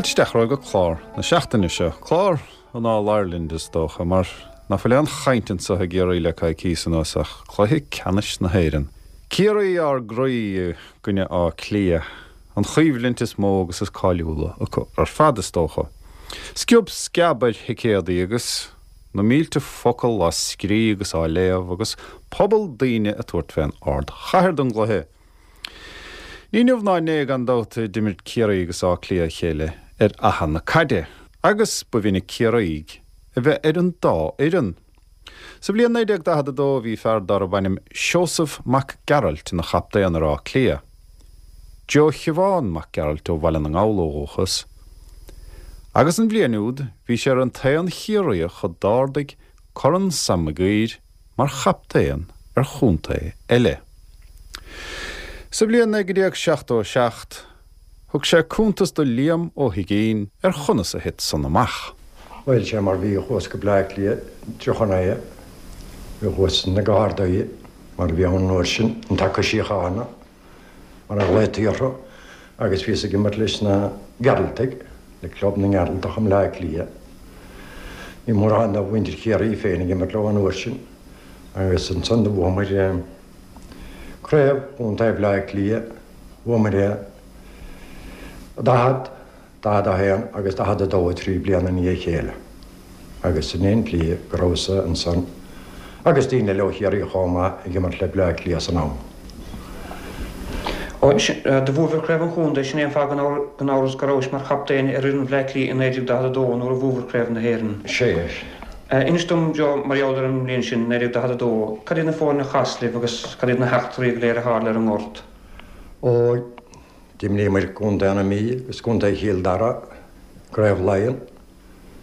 Fáilte isteach romhaibh go clár na seachtaine seo, clár an All Ireland is dócha, mar ná fuil aon chaint anseo i gCiarraí le coicíos anuas ach cluiche ceannais na hÉireann. Ciarraí ár gcroí i gcoinne Átha Cliath. An choimhlint is mó agus is cáiliúla acu ar fad, is dócha. Sciob sceab ar thicéadaí agus na mílte focal á scrí agus á léamh agus pobal daoine ag tabhairt fén ardchathair don gcluiche. Ní inniu ná inné, gan dabht, a d'imir Ciarraí agus Áth Cliath a chéile ar fhaiche na caide agus ba mhinic Ciarraígh a bheith ar an dá fhoireann. Sa bhliain 1942 bhí fear darb ainm Seosamh Mac Gearailt ina chaptaen ar Áth Cliath. Joe Shiobhán Mac Gearailt ó Bhaile na nGall ó dhúchas. Agus an bhliain úd bhí sé ar an t-aon Chiarraíoch a d'ardaigh Corn Sam Mac Uidhir mar chaptaen ar chontae eile. Sa bhliain 1977 Thug sé cuntas do Liam Ó hUiginn ar chonas a thit san amach. Bhuel, sé mar bhí, chuas go Bleá Cliath, 39, bhí chuas na Gardaí, mar a bhí ann an uair sin, an Taca Síochána, mar a ghlaotaí orthu, agus bhíos ag imirt leis na Gearaltaigh, le Club na nGearaltach i mBleá Cliath. Ní mórán de mhuintir Chiarraí féin ag imirt leo an uair sin, agus ansan do bhuamair Craobh Chontae Bhleá Cliath, Bhuamar é 40, 41 agus 42, 3 bliana i ndiaidh a chéile agus sin é an tslí go rabhas-sa ansan agus daoine eile ó Chiarraí chomh maith ag imirt le Bleá Cliath san am. Ó, do bhuabhair Craobh an Chontae, sin é an fáth gan amhras go rabhais mar chaptaen ar fhoireann Bhleá Cliath i 1942 nuair a bhuabhair Craobh na hÉireann. Sea. Inis dom, Joe, mar gheall ar an mbliain sin, 1942, cad iad na foirne a chas libh agus cad iad na heachtraí go léir a tharla ar an ngort? Ó, d'imríomair Contae na Mí agus Contae Chill Dara i gCraobh Laighean.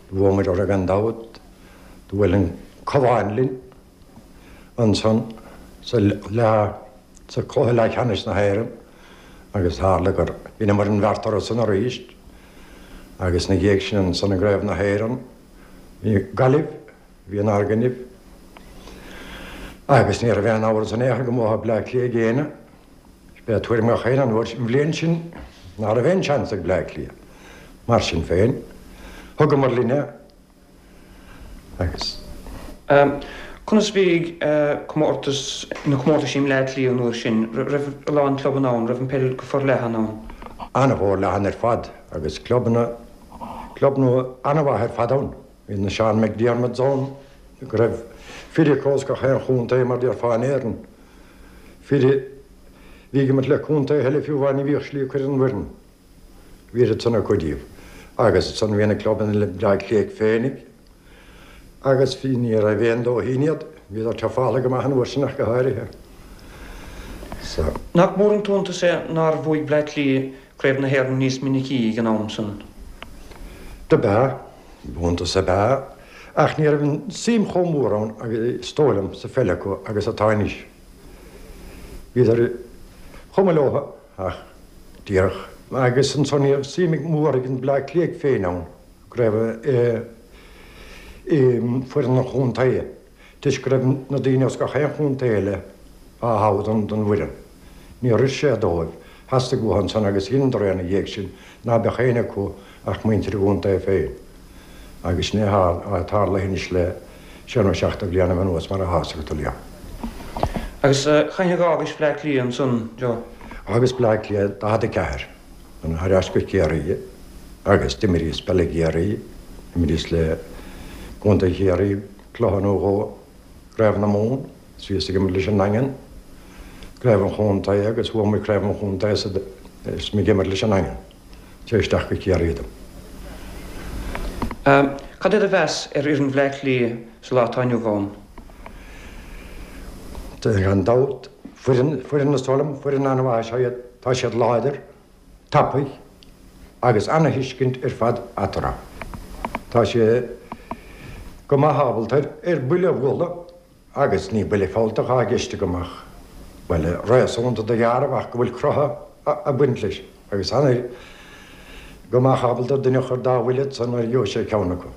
Do bhuamair orthu gan dabht. Do bhuail an Cabhán linn ansan sa leath, sa chluiche leathcheannais na hÉireann agus tharla gur dheineamair an bheart orthu san arís agus ina dhiaidh sin ansan i gCraobh na hÉireann bhí Gaillimh, bhí inár gcoinnibh agus ní raibh aon amhras in aon chor go mbuafadh Bleá Cliath ag éinne. B'é tuairim gach éinne an uair sin, an bhliain sin ná raibh aon seans ag Bleá Cliath. Mar sin féin, thugamar linn é agus. Conas a bhí comórtas, na comórtais i mBleá Cliath an uair sin? Raibh a lán clubanna ann? Raibh an peil go forleathan ann? An-fhorleathan ar fad agus clubanna, clubanna an-mhaith ar fad ann. Bhí na Sean McDiarmids ann, go raibh fir acu as gach aon chontae mar déarfá in Éirinn. Fir a bhí ag imirt le contaetha eile fiú amháin ní bhíodh slí acu ar an bhfoireann. Bhí oiread san acu díobh. Agus ansan bhí na clubanna le Bleá Cliath féinig agus bhí ní raibh aon dóithín iad, bhíodar tafála go maith an uair sin ach go háirithe. So. Nach mór an t-iontas é nár bhuaigh Bleá Cliath Craobh na hÉireann níos minicí ag an am san? Dob ea. Iontas ab ea, ach ní raibh an suim chomh mór ann agus is dóigh liom sa pheil acu agus atá anois. Bhíodar chomh maith leo ach díreach. Agus ansan ní raibh suim mhór ag an Bleá Cliath féin ann go raibh i bhfoireann an chontae. Toisc go raibh na daoine as gach aon chontae eile á thoghadh don bhfoireann. Níor oir sé dóibh. Theastaigh uathu ansan agus dheineadar é ina dhiaidh sin ná beadh éinne acu ach muintir a gcontae féin. Agus sin é atá tarlaithe anois le sé nó seachtó bliain anuas mar atá a fhios agat, a Liam. Agus cathain a dh'fhágais Bleá Cliath ansan, Joe? D'fhágas Bleá Cliath 44, thar ais go Ciarraí agus d'imríos peil i gCiarraí, d'imríos le Contae Chiarraí, Cluiche nó dhó, Craobh na Mumhan, is bhíos ag imirt leis an nDaingean, Craobh an Chontae agus bhuaigh muid Craobh an Chontae is mé ag imirt leis an nDaingean. Tar isteach go Ciarraí dom. Cad é do mheas ar fhoireann Bhleá Cliath sa lá atá inniu ann? Gan dabht, foireann, foireann is dóigh liom, foireann an-mhaith is ea iad. Tá siad láidir. tapaidh agus ana-thuiscint ar fad eatarthu. Tá sé. Go mbeadh ábalta ar buille a bhualadh agus ní buille fealltach atá i gceist agam ach buille réasúnta do ghearradh ach go bhfuil croitheadh ag baint leis agus an go mbeadh ábalta duine a chur dá bhuille ansan nuair a gheobhadh sé ceann acu.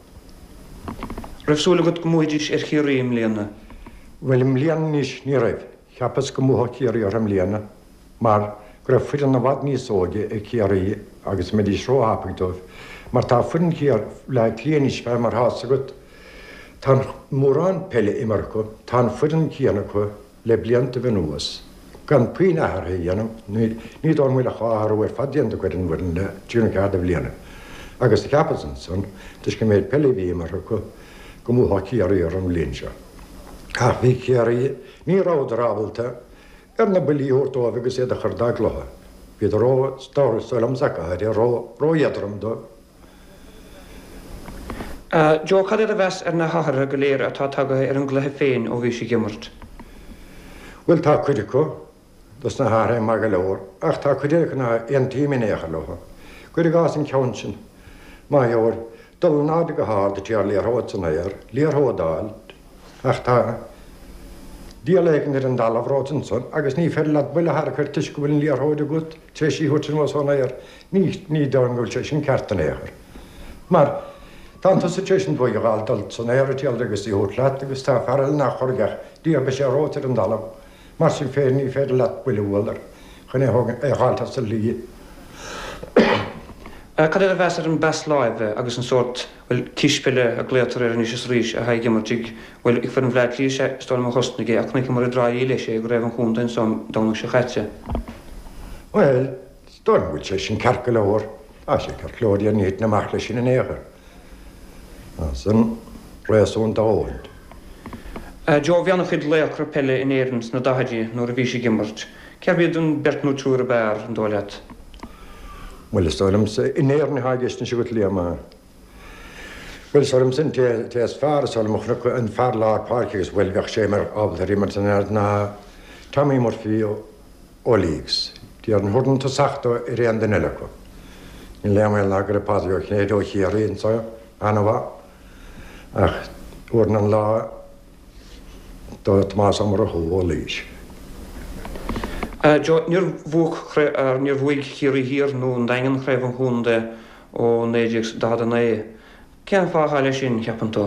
Raibh súil agat go mbuafaidís ar Chiarraí i mbliana? Bhuel i mbliana anois ní raibh. Cheapas go mbuafadh Ciarraí orthu i mbliana mar go raibh foireann i bhfad níos óige ag Ciarraí agus mbeidís róthapaidh dóibh mar tá foireann Bhaile Átha Cliath anois fé mar atá 'fhios agat tá mórán peile imeartha acu, tá an foireann céanna acu le blianta anuas gan puinn athraithe a dhéanamh, ní dóigh liom go bhfuil ach dá athrú ar fad déanta acu ar an bhfoireann le trí nó ceathair de bhliana agus cheapas ansan toisc an méid peile a bhí imeartha acu go mbuafadh Ciarraí orthu an bhliain seo. Ach bhí Ciarraí, ní rabhadar ábalta ar na buillí a thabhairt dóibh agus iad a chur dá gcluiche. Bhíodar ró, is dóigh liomsa go háirithe, ró, ró-éadrom dóibh. Joe, cad é do mheas ar na hathruithe go léir atá tagaithe ar an gcluiche féin ó bhís ag imirt? Bhuel, tá cuid acu dos na hathruithe maith go leor, ach tá cuid eile acu ná aontaím in aon chor leo. Cuir i gcás an ceann sin, má gheobhair dul in airde go hard ag triail liathróid san aer, liathróid a fháil, Ach tá diabhal éigin ar an dtalamh romhat ansan agus ní féidir leat buille a tharrac air toisc go bhfuil an liathróid agat tar éis í a thabhairt anuas ón aer. Ní, ní dóigh liom go bhfuil sé sin ceart in aon chor. Mar, tá tusa tar éis an bhuaidh a fháil dul san aer ag triail agus í a thabhairt leat agus tá fear eile nach chorraigh ach díreach beidh sé romhat ar an dtalamh. Mar sin féin, ní féidir leat buille a bhualadh air chun é a thógaint, é a dh'fháilt as a shlí. Cad é do mheas ar an bpas láimhe agus an sórt, bhuel, cispheile a glaotar air anois is arís, atá ag imirt ag, bhuel, ag foireann Bhaile Átha Cliath, sea, is dóigh liom a thosnaigh é, ach chonaiceamar i dTrá Lí leis é i gCraobh an Chontae anso an Domhnach seo chaite. Bhuel, is dóigh liom go bhfuil sé sin ceart go leor. Tá sé ceart go leor, ní thiteann amach leis sin in aon chor. Tá san réasúnta a dhóthain. Joe, Bhí an-chuid laochra peile in Éirinn sna daichidí nuair a bhís ag imirt. Cérbh iad an beirt nó triúr ab fhearr, an dóigh leat? Bhuel, is dóigh liomsa, in Éirinn atá i gceist anois agat, Liam, a. Bhuel, is dóigh liomsa an té is fearr, is dóigh liom a chonac an fear lár páirce agus bhuel, bheadh sé mar ábalta ar imirt in Éirinn ná Tommy Murphy ó ó Laois. Déarfainn thabharfainn tosach dó ar aon duine eile acu. Níl aon bhaol ná go raibh Pádraig Ó Cinnéide ó Chiarraí anso an-mhaith, ach thabharfainn an lá do Thomás Ó Murchú ó Laois. Joe, Níor bhuaigh, níor bhuaigh Ciarraí Thiar nó an Daingean Craobh an Chontae ó 1949. Cén fáth atá leis sin, cheapann tú?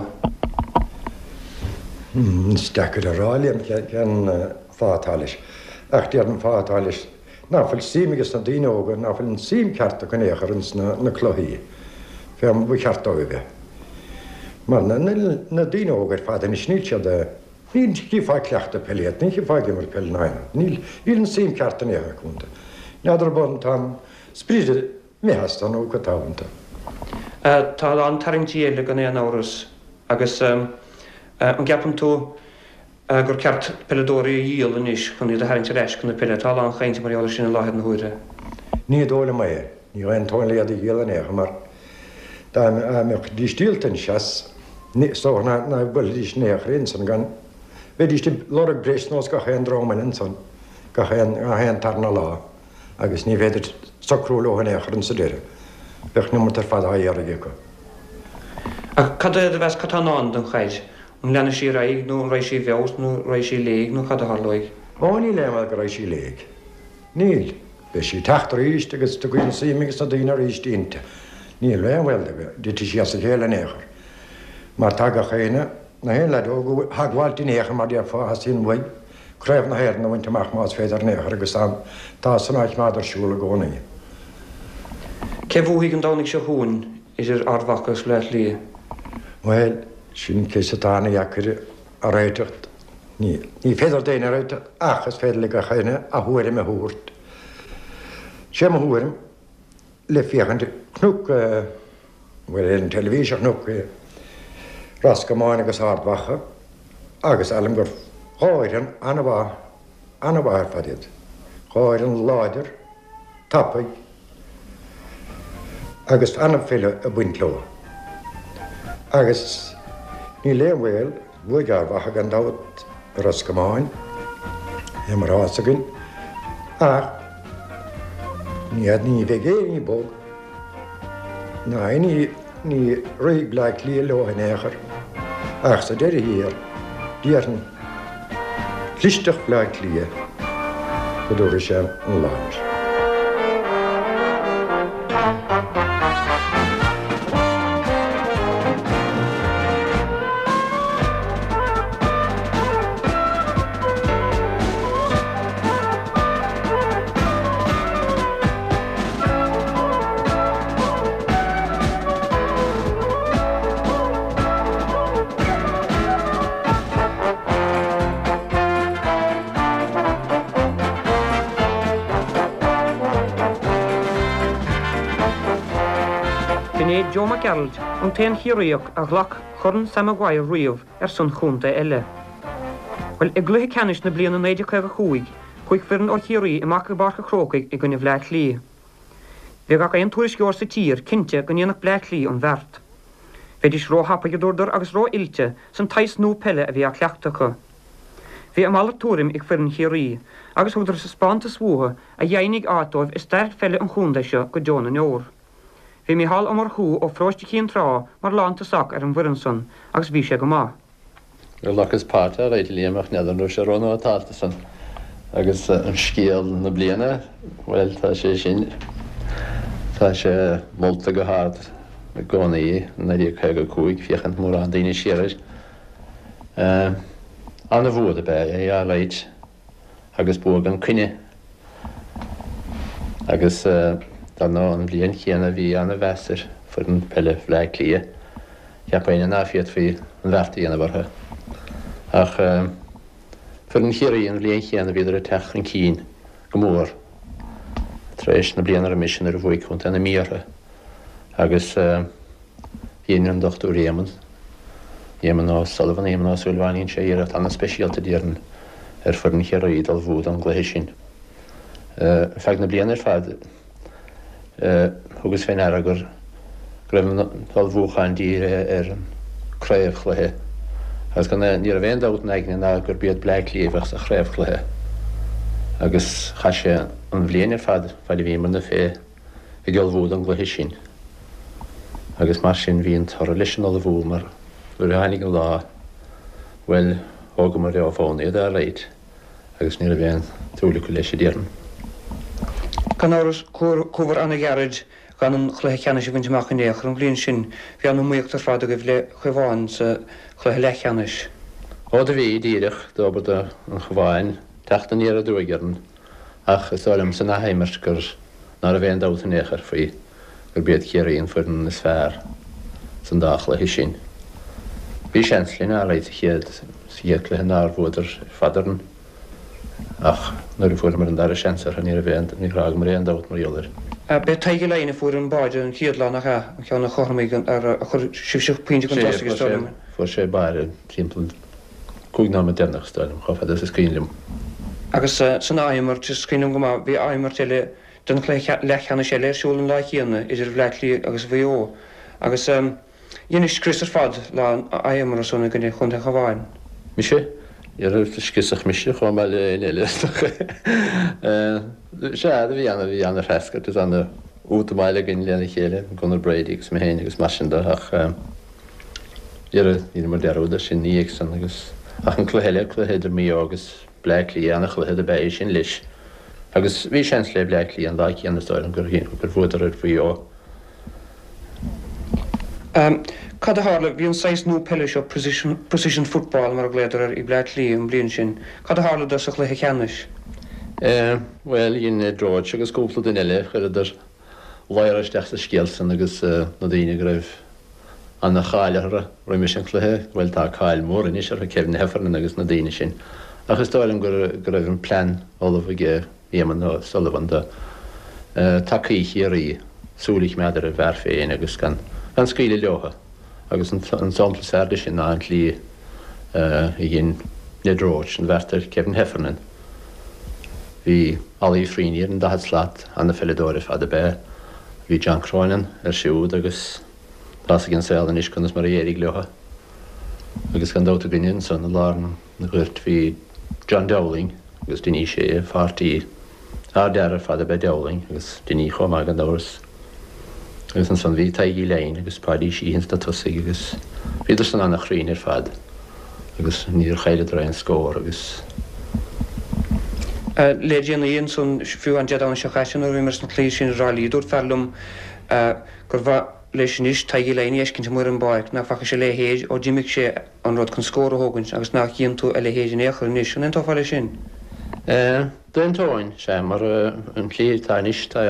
Is deacair a rá, Liam, cén fáth atá leis. Ach déarfainn an fáth atá leis ná fuil suim ages na daoine óga, ná fuil an suim ceart acu in aon chor ins na cluichí, fé mar ba cheart dóibh a bheith. Mar na daoine óga ar fad anois, níl siad, ní chífeá ag cleachtadh peile iad, ní chífeá ag imirt peile ná aon rud. Níl, níl an suim ceart in aon chor acu iontu. N'fheadar an tá an sprid imithe astu nó cad tá iontu. Tá a lán tarraingtí eile gan aon amhras agus an gceapann tú gur ceart peileadóirí a dhíol anois chun iad a tharraingt ar ais chun na peile? Tá a lán chainte mar gheall air sin i láthair na huaire. Ní dóigh liom é. Ní aontóinn le iad a dhíol in aon chor mar dá mbeidís díolta anois as, is dócha ná buailfidís in aon chor ansan gan, bheidís ag lorg breis nós gach aon dream eile ansan gach aon tarna lá. agus ní féidir socrú leo in aon chor insa deireadh. Bheadh an iomarca ar fad á iarraidh acu. Ach cad é do mheas, cad tá i ndán don chaid? An leanfaidh sí ar aghaidh nó an raghaidh sí i bhfeabhas nó raghaidh sí i léig nó cad a tharlóidh? Ó, níl aon bhaol go raghaidh sí i léig. Níl. Beidh sí ag teacht arís agus tiocfaidh an suim ages na daoine arís inti. Níl aon bhaol go dtitfidh sí as a chéile in aon chor. Mar tá gach éinne, na haon leaid óg á theagmháilt in aon chor mar déarfá, a theastaíonn uaidh. Craobh na hÉireann a bhaint amach más féidir in aon chor agus tá san á choimeád ar siúl i gcónaí. Cé bhuafaidh an Domhnaigh seo chugainn idir Ard Mhacha agus Bleá Cliath? Bhuel, sin ceist atá ana-dheacair a réiteach. Ní féidir d'éinne a réiteach ach is féidir le gach éinne a thuairim a thabhairt. Sé mo thuairim, le féachaint chonac, bhuel ar an teilifís a chonac Ros Comáin agus Ard Mhacha agus alim gur dhá fhoireann an-mhaith, an-mhaith ar fad iad. Dhá fhoireann láidir, tapaidh agus an-pheil ag baint leo. Agus níl aon bhaol, bhuaigh Ard Mhacha gan dabht ar Ros Comáin, é mar atá fhios againn, ach ní, ní bheidh aon ní bog, Ná ní rithfidh Bleá Cliath leo in aon chor. Ach sa deireadh thiar, déarfainn, clisteacht Bhleá Cliath go dtabharfaidh sé an lá air. B'in é Joe Mac Gearailt, an t-aon Chiarraíoch a ghlac Corn Sam Maguire riamh ar son chontae eile. Bhuel, i gcluiche ceannais na bliana 1955, chuaigh foireann ó Chiarraí amach i bPáirc a' Chrócaigh i gcoinne Bhleá Cliath. Bhí gach aon tuairisceoir sa tír cinnte go ndéanfadh Bleá Cliath an bheart. Bheidís ró-thapaidh, a dúradar, agus ró-oilte san tsaghas nua peile a bhí á cleachtadh acu. Bhí a mhalairt tuairim ag foireann Chiarraí agus thugadar taispeántas uathu a dheimhnigh áit dóibh i stair pheile an chontae seo go deo na ndeor. Bhí Mícheál Ó Murchú ó pharóiste Chinn Trá mar lántosach ar an bhfoireann san agus bhí sé go maith. Ghlacas páirt alright a Liam ach n'fheadar an raibh sé rónótálta san. Agus an scéal na bliana, bhuel tá sé sin, tá sé molta go hard i gcónaí, 1955, féachann mórán daoine siar air. Ana-bhua dob ea é alright agus bua gan coinne. Agus dar ndóigh an bhliain chéanna bhí ana-mheas ar foireann peile Bhleá Cliath. Cheap éinne ná féadfaí an bheart a dhéanamh orthu. Ach foireann Chiarraí an bhliain chéanna bhíodar ag teacht chun cinn go mór tar éis na bliana roimis nuair a bhuaigh Contae na Mí orthu. Agus dhein an Dochtúir Éamonn, Éamonn O'Sullivan, Éamonn Ó Súilleabháin, dhein sé iarracht an-speisialta déarfainn ar foireann Chiarraí d'ullmhú don gcluiche sin. Ar feadh na bliana ar fad, Thugas fé ndeara go raibh an t-ullmhúchán dírithe ar an craobhchluiche agus gan ní raibh aon dabht in aigne ná gurb iad Bleá Cliath a bheadh sa chraobhchluiche agus chaith sé an bhliain ar fad fad a bhíomarna fé ag ullmhú don gcluiche sin agus mar sin bhí an toradh leis an ullmhú mar nuair a tháinig an lá bhuel thógamar ó bhonn iad alright. agus ní raibh aon tsúil acu leis, a déarfainn. Gan amhras, chuabhair ana-ghairid gan an chluiche ceannais a bhaint amach in aon chor an bhliain sin. Bhí an-iomaíocht ar fad agaibh le Cabhán sa chluiche leathcheannais. Ó do bhí, díreach, dóbair do an Chabháin teacht aniar aduaidh orainn ach is dóigh liom san athimirt gur ná raibh aon dabht in aon chor faoi gurb iad Ciarraí an foireann is fearr san dá chluiche sin. Bhí seans linn alright sa chéad sa chéad cluiche nár bhuadar ar fad orainn ach nuair a fuaireamar an dara seans orthu ní raibh aon níor fhágamar aon dabht mar gheall air. B'é Tadhg Ó Laighin a fuair an báide an chéad lá, nach ea? An ceann a chothromaigh an ar a chuir sibhse pointe chun tosaigh is dóigh liom. Fuair sé báire timpeall 5 nóiméad deireanach is dóigh liom, chomh fada is is cuimhin liom. Agus san athimirt, is cuimhin liom go maith, bhí athimirt eile den chluiche leathcheannais eile ar siúl an lá chéanna idir Bhleá Cliath agus Mhaigh Eo agus dheinis scrios ar fad lá an athimeartha san i gcoinne Chontae an Chabháin. Mise? Níor scriosadh mise chomh maith le éinne eile is dócha. Sea, do bhí ana, bhí ana-threascairt is ana-útamáil againn lena chéile, Gunnar Brady agus mé féin agus mar sin de ach dhera, dheineamar dearúd air sin ina dhiaidh san agus, ach an cluiche eile, cluiche idir Maigh Eo agus Bleá Cliath, ana-chluiche do b'ea é sin leis. Agus bhí seans le Bleá Cliath an lá céanna is dóigh liom gur gur bhuadar ar Mhaigh Eo. Cad a tharla? Bhí an saghas nua peile seo, precision precision football mar a ghlaodar air, ag Bleá Cliath an bhliain sin. Cad a tharla do sa chluiche ceannais? Bhuel, dhein Ned Roche agus cúpla duine eile, chuireadar ladhar isteach sa scéal san agus na daoine go raibh ana-cháil orthu roimis an chluiche, bhuel tá cáil mhór anois orthu, Kevin Heffernan agus na daoine sin. Ach is dóigh liom go raibh an plean ullamh aige Éamonn O'Sullivan do tacaí Chiarraí súil a choimeád ar a bhfear féin agus gan scaoileadh leotha agus an sampla is fearr de sin ná an tslí a dhein Ned Roche an bheart ar Kevin Heffernan. Bhí Ollie Freeney ar an daichead slat, ana-pheileadóir ar fad ab ea. Bhí John Cronin air siúd agus tá's ag an saol anois conas mar a d'éirigh leo. Agus gan dabht againne ansan i lár an ghoirt bhí John Dowling agus Dinny Shea, pháirtí. Ardfhear ar fad ab ea Dowling agus Dinny chomh maith gan amhras. Agus ansan bhí Tadhg Uí Leighin agus Páidí Sheehy ins na tosaigh agus bhíodar san ana-chruinn ar fad agus níor chailleadar aon scór agus. Le déanaí ansan, fiú an Dé Domhnaigh seo caite nuair a bhíomar sna cluichí sin i dTrá Lí, dúirt fear liom gur mhaith leis anois Tadhg Uí Leighin a fheiscint amuigh ar an bpáirc, nach bhfaca sé a leithéid ó d'imigh sé an rud chun scór a thógaint agus nach gcíonn tú a leithéid in aon chor anois. An aontófá leis sin? D'aontóinn, sea, mar an tslí atá anois tá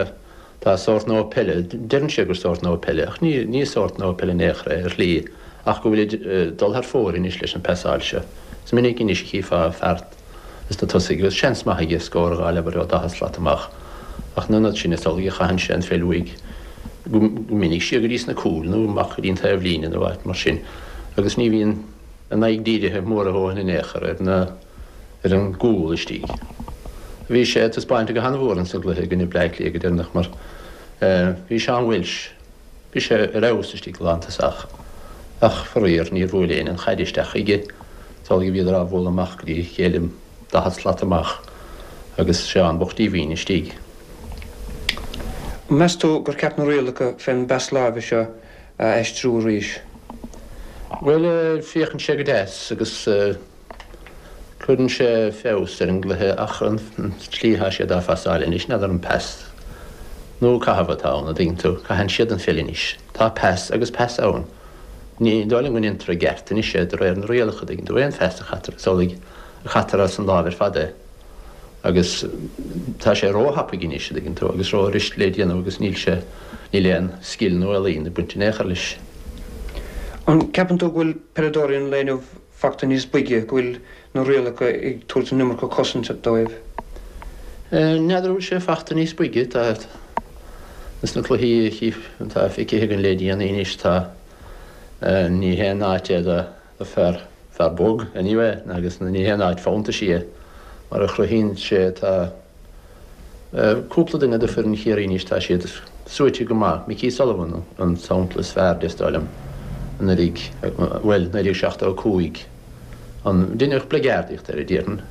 Tá sórt nua peile, deireann siad gur sórt nua peile, ach ní ní sórt nua peile in aon chor é, ar shlí, ach go bhfuilid ag dul thar fóir anois leis an bpasáil seo. Is minic anois a chífeá fear ins na tosaigh agus seans maith aige scór a dh'fháil abair ó 40 slat amach, ach in ionad sin is amhlaidh a chaitheann sé an pheil uaidh go minic siar go dtí sna cúil nó amach go dtí an taobh líne nó áit mar sin agus ní bhíonn a n-aghaidh dírithe mór a dhóthain in aon chor ar na ar an gcúl istigh. Bhí sé ag taispeáint go han-mhór insa gcluiche i gcoinne Bleá Cliath go deireanach mar bhí Seán Walsh, bhí sé ar fheabhas istigh lántosach ach faraor níor bhuail éinne an chaid isteach chuige. Is amhlaidh a bhíodar á bhualadh amach go dtí a chéile 40 slat amach agus Seán bocht díomhaoin istigh. An meas tú gur ceart na rialacha fén bpas láimhe seo a aistriú arís? Bhuel, féachann sé go deas agus. Cuireann sé feabhas ar an gcluiche ach an tslí atá siad á phasáil anois, n'fheadar an pas nó caitheamh atá ann, an dtuigeann tú. Caitheann siad an pheil anois. Tá pas agus pas ann. Ní dóigh liom go ndéantar i gceart anois é de réir na rialacha, an dtuigeann tú. Aon phas a chaitear, is amhlaidh a chaitear as an láimh ar fad é. Agus tá sé ró-thapaidh anois, an dtuigeann tú, agus ró-fhuirist le déanamh agus níl sé, níl aon scil nó ealaín ag baint in aon chor leis. An gceapann tú go bhfuil peileadóirí an lae inniu fachta níos boige, go bhfuil na rialacha ag tabhairt an iomarca cosaint dóibh? N'fheadar an bhfuil sé fachta níos boige, tá, ins na cluichí atá feicthe againn le déanaí anois, tá, ní haon áit é do fear, fear bog, anyway, agus ní haon áit fóntais í, mar a chruthaíonn sé, tá. Cúpla duine de foireann Chiarraí anois, tá siad suaite go maith. Mickey Sullivan an sampla is fearr de, is dóigh liom, anuraidh, bhuel, 1975, an, deineadh bligeardaíocht air, déarfainn.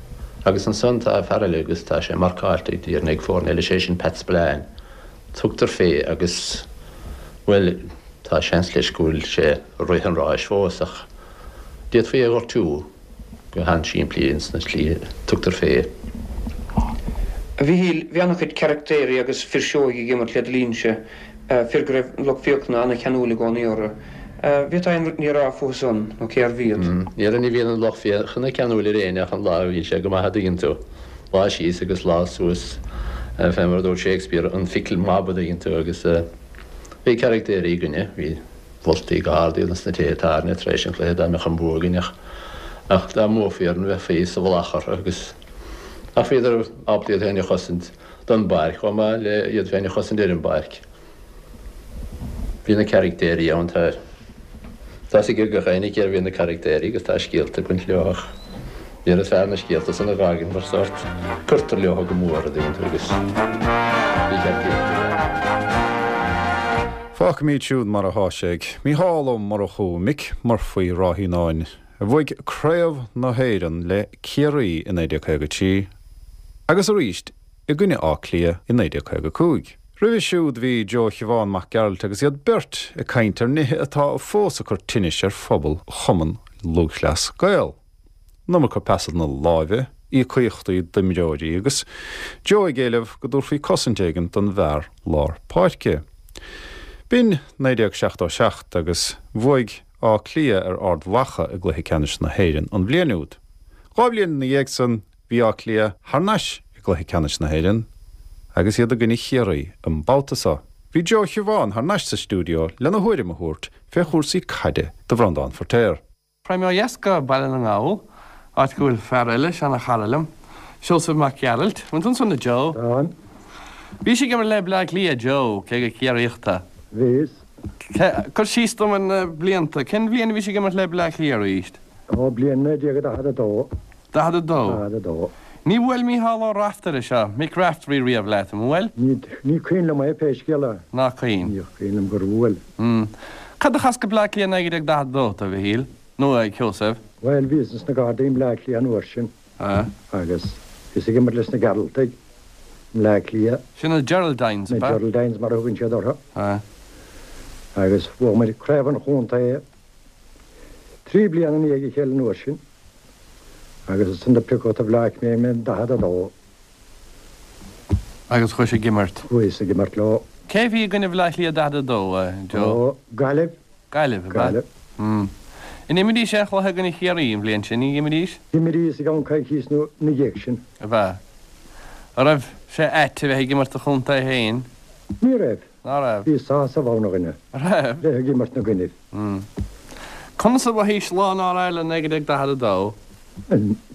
Agus ansan tá fear eile agus tá sé marcáilte, déarfainn, ag foirne eile, sé sin Pat Spillane. Tugtar fé agus, bhuel, tá seans leis go bhfuil sé ag rith an ráis fós ach d'fhéadfaí é a ghortú. Go han-simplí ins na slí a tugtar fé. A Mhichíl, bhí an-chuid caractéirí agus fir seoigh ag imirt le do linnse, fir go raibh an lucht féachana an-cheanúil i gcónaí orthu. Bhféadfá aon ní a rá fúthu san, nó cérbh iad? Déarfainn ní bhíonn an lucht féachana ceanúil ar éinne ach an lá a bhíonn sé go maith a dtuigeann tú. Lá síos agus lá suas, fé mar a dúirt Shakespeare, an fickle mob a dtuigeann tú agus bhí caractéirí againne, bhí. Mholtaí go hard iad ins na tithe tábhairne tar éis an chluiche dá mbeadh an bua againn ach ach dá mbuafaí orainn bheifí sa mhullach orthu agus ach bhíodar ábalta iad féin a chosaint don bpáirc chomh maith le iad féin a chosaint ar an bpáirc. Bhí na caractéirí ann tá tá 'fhios ag gach éinne cérbh iad na caractéirí agus tá scéalta ag baint leo ach Níorbh is fearr na scéalta san a dh'fhágaint mar sórt cuirtear leo go mór a dtuigeann tú agus ní cheart iad a Fágfaimid siúd mar athá sé ag Mícheál Ó Murchú, Mick Murphy Ráth Fhíonáin, a bhuaigh Craobh na hÉireann le Ciarraí i 1953 agus arís i gcoinne Átha Cliath i 1955. Roimhe siúd bhí Joe Shiobhán Mac Gearailt agus iad beirt ag caint ar nithe atá fós ag cur tinnis ar phobal Chumann Lúthchleas Gael. An iomarca pasanna láimhe, íocaíochtaí d'imreoirí agus Joe ag éileamh go dtabharfaí cosaint éigin don bhfear lár páirce. B'in 1977 agus bhuaigh Áth Cliath ar Ard Mhacha i gcluiche ceannais na hÉireann an bhliain úd. Dhá bhliain ina dhiaidh san bhí Áth Cliath thar n-ais i gcluiche ceannais na hÉireann agus iad i gcoinne Chiarraí an babhta seo. Bhí Joe Shiobhán thar n-ais sa stiúideo lena thuairim a thabhairt fé chúrsaí caide do Bhreandán Feirtéar. Raghaidh mé ó dheas go Baile na nGall, áit go bhfuil fear eile, seana-chara liom, Seosamh Mac Gearailt. Bhfuil tú ansan, a Joe? Táim. Bhís ag imirt le Bleá Cliath, a Joe, cé gur Ciarraíoch tú. Bhíos. Cuir síos dom ar na blianta. Cén bhliain a bhís ag imirt le Bleá Cliath arís? Ó, bliain 1942. 42. 42. Ní bhuail Mícheál Ó Raftaire seo, Mick Raftery riamh leat, an bhuail? Ní, ní cuimhin liom é pé scéal é. Ná cuimhin. Ní cuimhin liom gur bhuail. Mm. Cad a chas go Bleá Cliath 1942 tú, a Mhichíl? Nó a Sheosaimh? Bhuel, bhíos ins na Gardaí i mBleá Cliath an uair sin. Ah. Agus bhíos ag imirt leis na Gearaltaigh i mBleá Cliath. Sin na Geraldines, ab ea? Na Geraldines mar a thugann siad orthu. Ah. Agus bhuaigh muid craobh an chontae 3 bliana i ndiaidh a chéile an uair sin. Agus ansan do piocadh do Bhleá Cliath mé in 42. Agus chuais ag imirt? Chuas ag imirt leo. Cé a bhí i gcoinne Bhleá Cliath 42, a Joe? Ó, Gaillimh. Gaillimh, ab ea? Gaillimh. Mm. An imríos aon chluiche i gcoinne Chiarraí an bhliain sin? Ní imríos? D'imríos i gceann coicíos ina dhiaidh sin. Ab ea? An raibh sé ait a bheith ag imirt do chontae féin? Ní raibh. Ná raibh? Bhí sásamh ann a dhuine. An raibh? Bheith ag imirt 'na gcoinnibh. Mm. Conas a mhothaís lá an All Ireland 1942?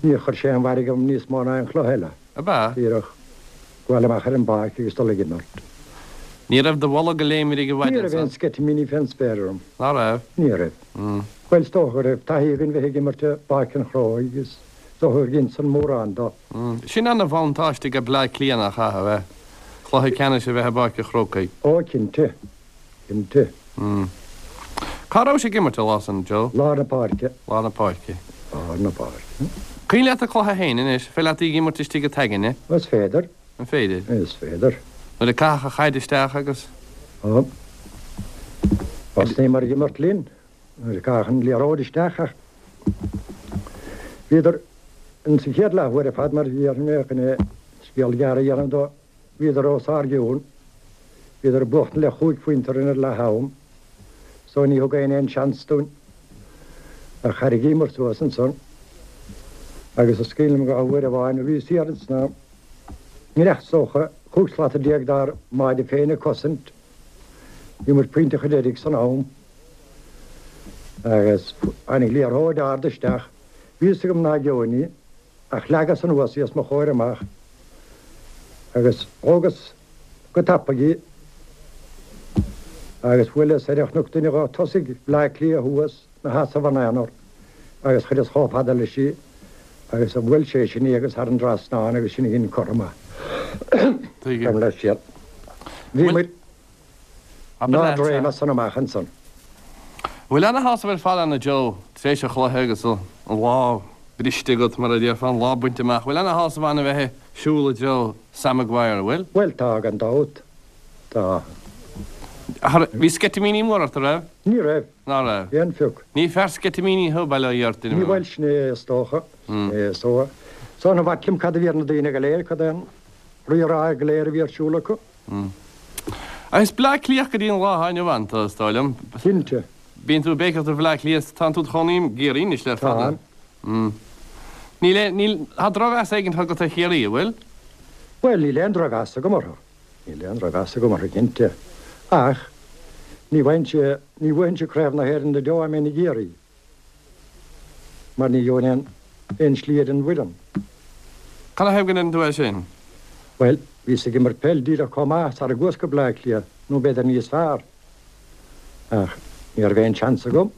Níor chuir sé aon mhairg orm níos mó ná aon chluiche eile. Ab ea? Díreach gabháil amach ar an bpáirc agus dul ag imirt. Ní raibh do bholg ag léimrigh i bhfad Ní raibh aon ansan? sceitimíní fén spéir orm. Ná raibh? Ní raibh. Mm. Bhuel, is dócha go raibh taithí againn bheith ag imirt i bPáirc an Chrócaigh agus is dócha gur dhein san mórán do. Mm. Sin ana-bhuntáiste ag Bleá Cliath nach ea, a bheith, cluiche ceannais a bheith i bPáirc an Chrócaigh. Ó, cinnte. Cinnte. Mm. Cá rabhais ag imirt an lá san, Joe? Lár na páirce. Lár na páirce. Lár na páirce. Cuimhin leat an cluiche féin anois? Féidir leat í ag imirt istigh i t'aigne? Is féidir. An féidir? Is féidir. Nuair a caitheadh an chaid isteach agus. Ó. Thosnaíomar ag imirt linn nuair a caitheadh an liathróid isteach ach bhíodar in sa chéad leathuair ar fad mar a déarfainn mé chun é scéal gearr a dhéanamh dó. Bhíodar os ár gcionn. Bhíodar ag buachtaint le chúig phointe orainn ar leath am so ní thug éinne aon seans dúinn. Ach thairrigíomar suas ansan agus is cuimhin liom go uair amháin a bhíos thiar ins na nGreach is dócha, 15 slata dár mbáide féin ag cosaint. Bhí muid pointe chun deiridh san am agus tháinig liathróid ard isteach. Bhí fhios agam ná gheobhainn í. Ach leagas anuas í os mo chomhair amach agus thógas go tapaidh í agus bhuaileas ar chonac duine dho tosaigh Bhleá Cliath thuas 'na sheasamh ina aonar agus chuireas chomh fada leis í agus bhuail sé sin í agus thar an dtrasnán agus sin a dhein cothrom. Tuigim. Leis siad. Bhí muid In ard-réim as san amach ansan. Bhfuil ana-shásamh ar fad ann, a Joe, tar éis an chluiche agus an lá briste agat, mar a déarfá, an lá bainte amach. Bhfuil ana-shásamh ann a bheith ag siúl i dtreo Sam Maguire, an bhfuil? Bhuel, tá, gan dabht. Tá. Bhí sceitimíní móra ort, an raibh? Ní raibh. Ná raibh? Aon phioc. Ní fear sceitimíní thú, bail ó Dhia ort, Ní bhuel, sin é, is dócha. Sin é, is dócha. So, ní b'ait liom cad a bhí ar na daoine go léir, cad é an rí-rá go léir a bhí ar siúl acu. Ach is Bleá Cliathach go dtí an lá atá inniu ann tú, is dóigh liom. Cinnte. Bíonn tú ag béiceach do Bhleá Cliath, tánn tú id chónaí i gCiarraí anois le fada. Táim. Níl aon, níl, tá drochmheas éigin agat ar Chiarraí, an bhfuil? Bhuel, níl aon drochmheas agam orthu. Níl aon drochmheas agam orthu, cinnte. Ach ní bhfaighinn, ní bhuafainnse Craobh na hÉireann go deo dá mbeinn i gCiarraí. Mar ní gheobhainn aon aon slí ar an bhfoireann. Canathaobh go ndeireann tú é sin? Bhuel, bhíos ag imirt peil díreach chomh maith sara gcuas go Bleá Cliath, nó b'fhéidir níos fearr. Ach ní raibh aon seans agam.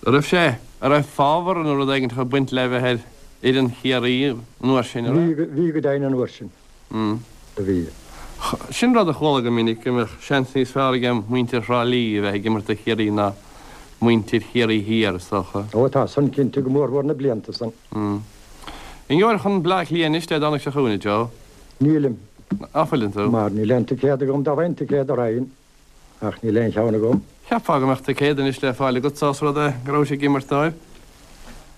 An raibh sé, an raibh fábhar nó rud éigin ag baint le bheith ar fhoireann Chiarraí an uair sin, an raibh? Bhí, bhí go deimhin an uair sin. Do bhí. Sin rud a chuala go minic, go mbeadh seans níos fearr ag muintir Thrá Lí a bheith ag imirt do Chiarraí ná muintir Chiarraí Thiar, is dócha. Ó, tá san cinnte, go mórmhór na blianta san. An ngeobhair chun Bleá Cliath anois Dé Domhnaigh seo chugainn, a Joe? Nílim. Ná fuileann tú? Mar níl aon ticéad agam, dá bhfaighinn ticéad raghainn, ach níl aon cheann agam. Cheapfá go mbeadh ticéad anois le fáil agat, ós rud é go rabhais ag imirt dóibh.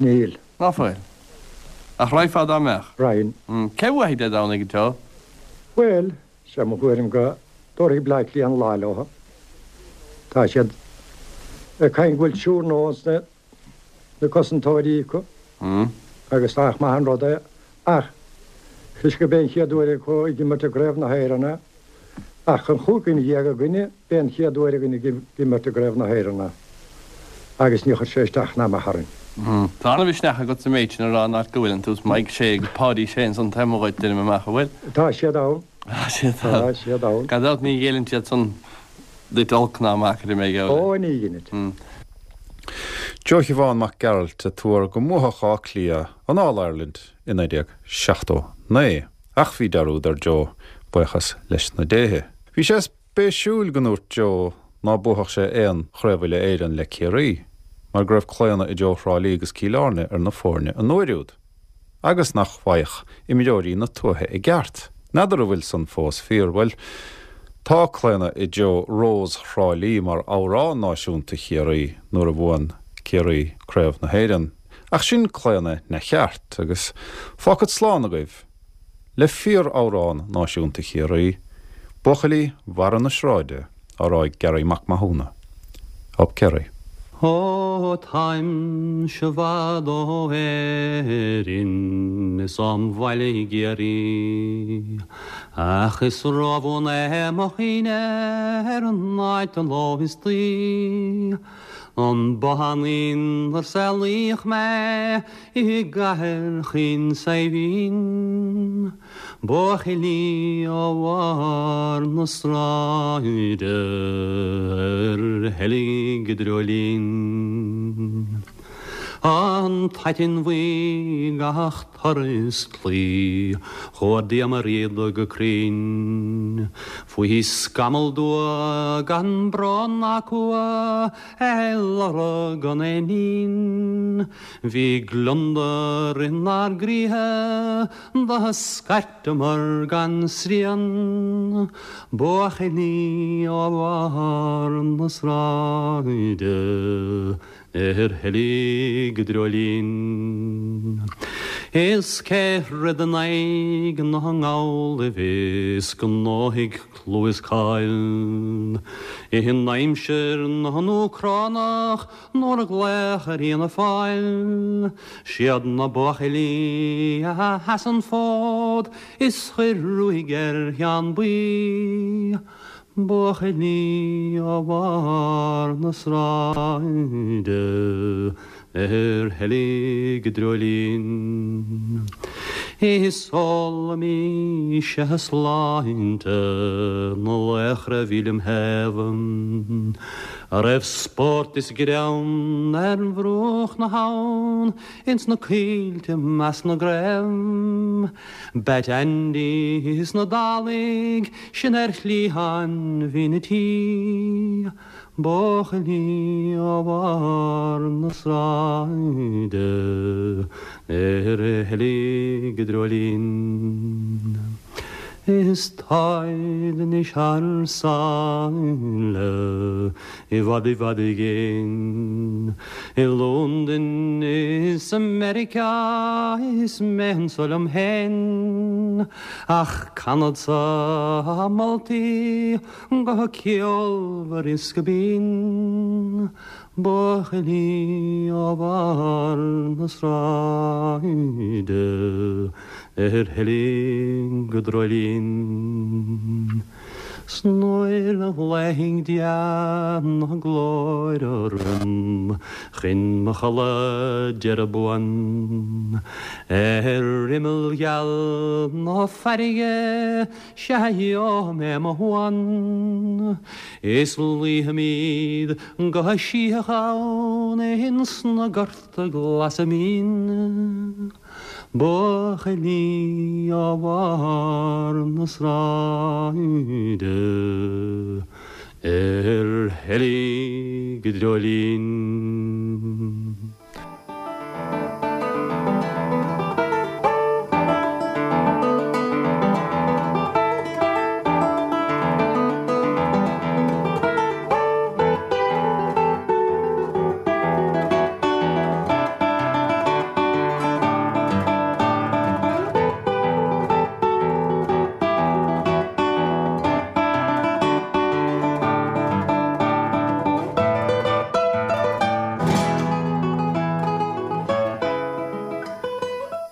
Níl. Ná fuil. Ach raghfá dá mbeadh. Raghainn. Cé bhuafaidh Dé Domhnaigh, a Joe? Bhuel, sé mo thuairim go dtabharfaidh Bleá Cliath an lá leo. Tá siad ag caint go bhfuil triúr nua ins na cosantóirí acu agus nach maith an rud é ach toisc gurb é an chéad uair acu ag imirt i gCraobh na hÉireann é. Ach an chúig dhuine againne, b'é an chéad uair againn ag imirt i gCraobh na hÉireann é agus ní chuir sé isteach ná amach orainn. Tá an-mhisneach agat sa méid sin a rá an áit go bhfuileann tú. Is Mike Shea agus Páidí Shea ansan taobh amuigh dhuit, deinim amach, an bhfuil? Tá siad ann. Tá siad ann. Tá siad ann. Gan dabht ní ghéilleann siad san duit olc ná maith, cuirfidh mé geall leat. Ó, ní dheinid. Joe Shiobhán Mac Gearailt ag tuar go mbuafadh Áth Cliath an All Ireland i 1979. Ach bhí dearúd ar Joe, buíochas leis na déithe. Bhí sé spéisiúil go ndúirt Joe ná buafadh sé aon Chraobh Uile-Éireann le Ciarraí, mar go raibh claonadh i dtreo Thrá Lí agus Cill Airne ar na foirne an uair úd, agus nach bhfaigheadh imreoirí na tuaithe a gceart. N'fheadar an bhfuil san fós fíor. Bhuel, Tá claonadh i dtreo Rós Thrá Lí mar amhrán náisiúnta Chiarraí nuair a bhuann Ciarraí Craobh na hÉireann, ach sin claonadh neamhcheart agus fágfad slán agaibh le fíor-amhrán náisiúnta Chiarraí, Buachaillí Bharra na Sráide, á rá ag Garry Mac Mathúna. Up Kerry. Ó táimse i bhfad ó Éirinn is óm bhaile i gCiarraí Ach is róbhuan é mo chuimhne ar an áit an ló istoíche An bothán inar saolaíodh mé i gcathair chaoin Saidhbhín. Buachaillí ó bharr na sráide ar sheilg i dreoilín. An t-aiteann bhuí gach turas claí chuardaíomar iad go cruinn. Faoi scamall dubh gan brón ná cumha ar lorg an éinín. Bhí gliondar inár gcroíthe Do scairteamar gan srian, buachaillí ó bharr na sráide ar sheilg i dreoilín. Is cé throid in aghaidh na nGallaibh is ghnóthaigh clú is cáil in aimsir na nÚcránach Nuair a glaodh ar Fhianna Fáil, siad na buachaillí a sheas an fód is chuir ruaig ar Sheán Buí. Buachaillí ó bharr na sráide ar sheilg i dreoilín. Is ólaimís sláinte na laochra a bhí lem thaobh. A raibh spórt is greann ar bhruach na habhann ins na coillte measc na gcraobh. Batt Andy is na Dálaigh sin ar chliathán bhinn an tí. Buachaillí ó bharr na sráide ar sheilg i dreoilín. Is táid anois thar sáile i bhfad i bhfad i gcéin. I Londain is i Meiriceá is mé anso liom féin. Ach canadsa a moltaí go ceolmhar is go binn. Buachaillí ó bharr na sráide ar sheilg i dreoilín. 'S nuair a ghlaofaidh Dia na glóire orm chun mo chodladh deireadh buan ar imeall geal na farraige sea gheobhaidh mé mo shuan is luífimid go sítheach ann ins na gorta glasa mín. Buachaillí ó bharr na sráide ar sheilg i dreoilín.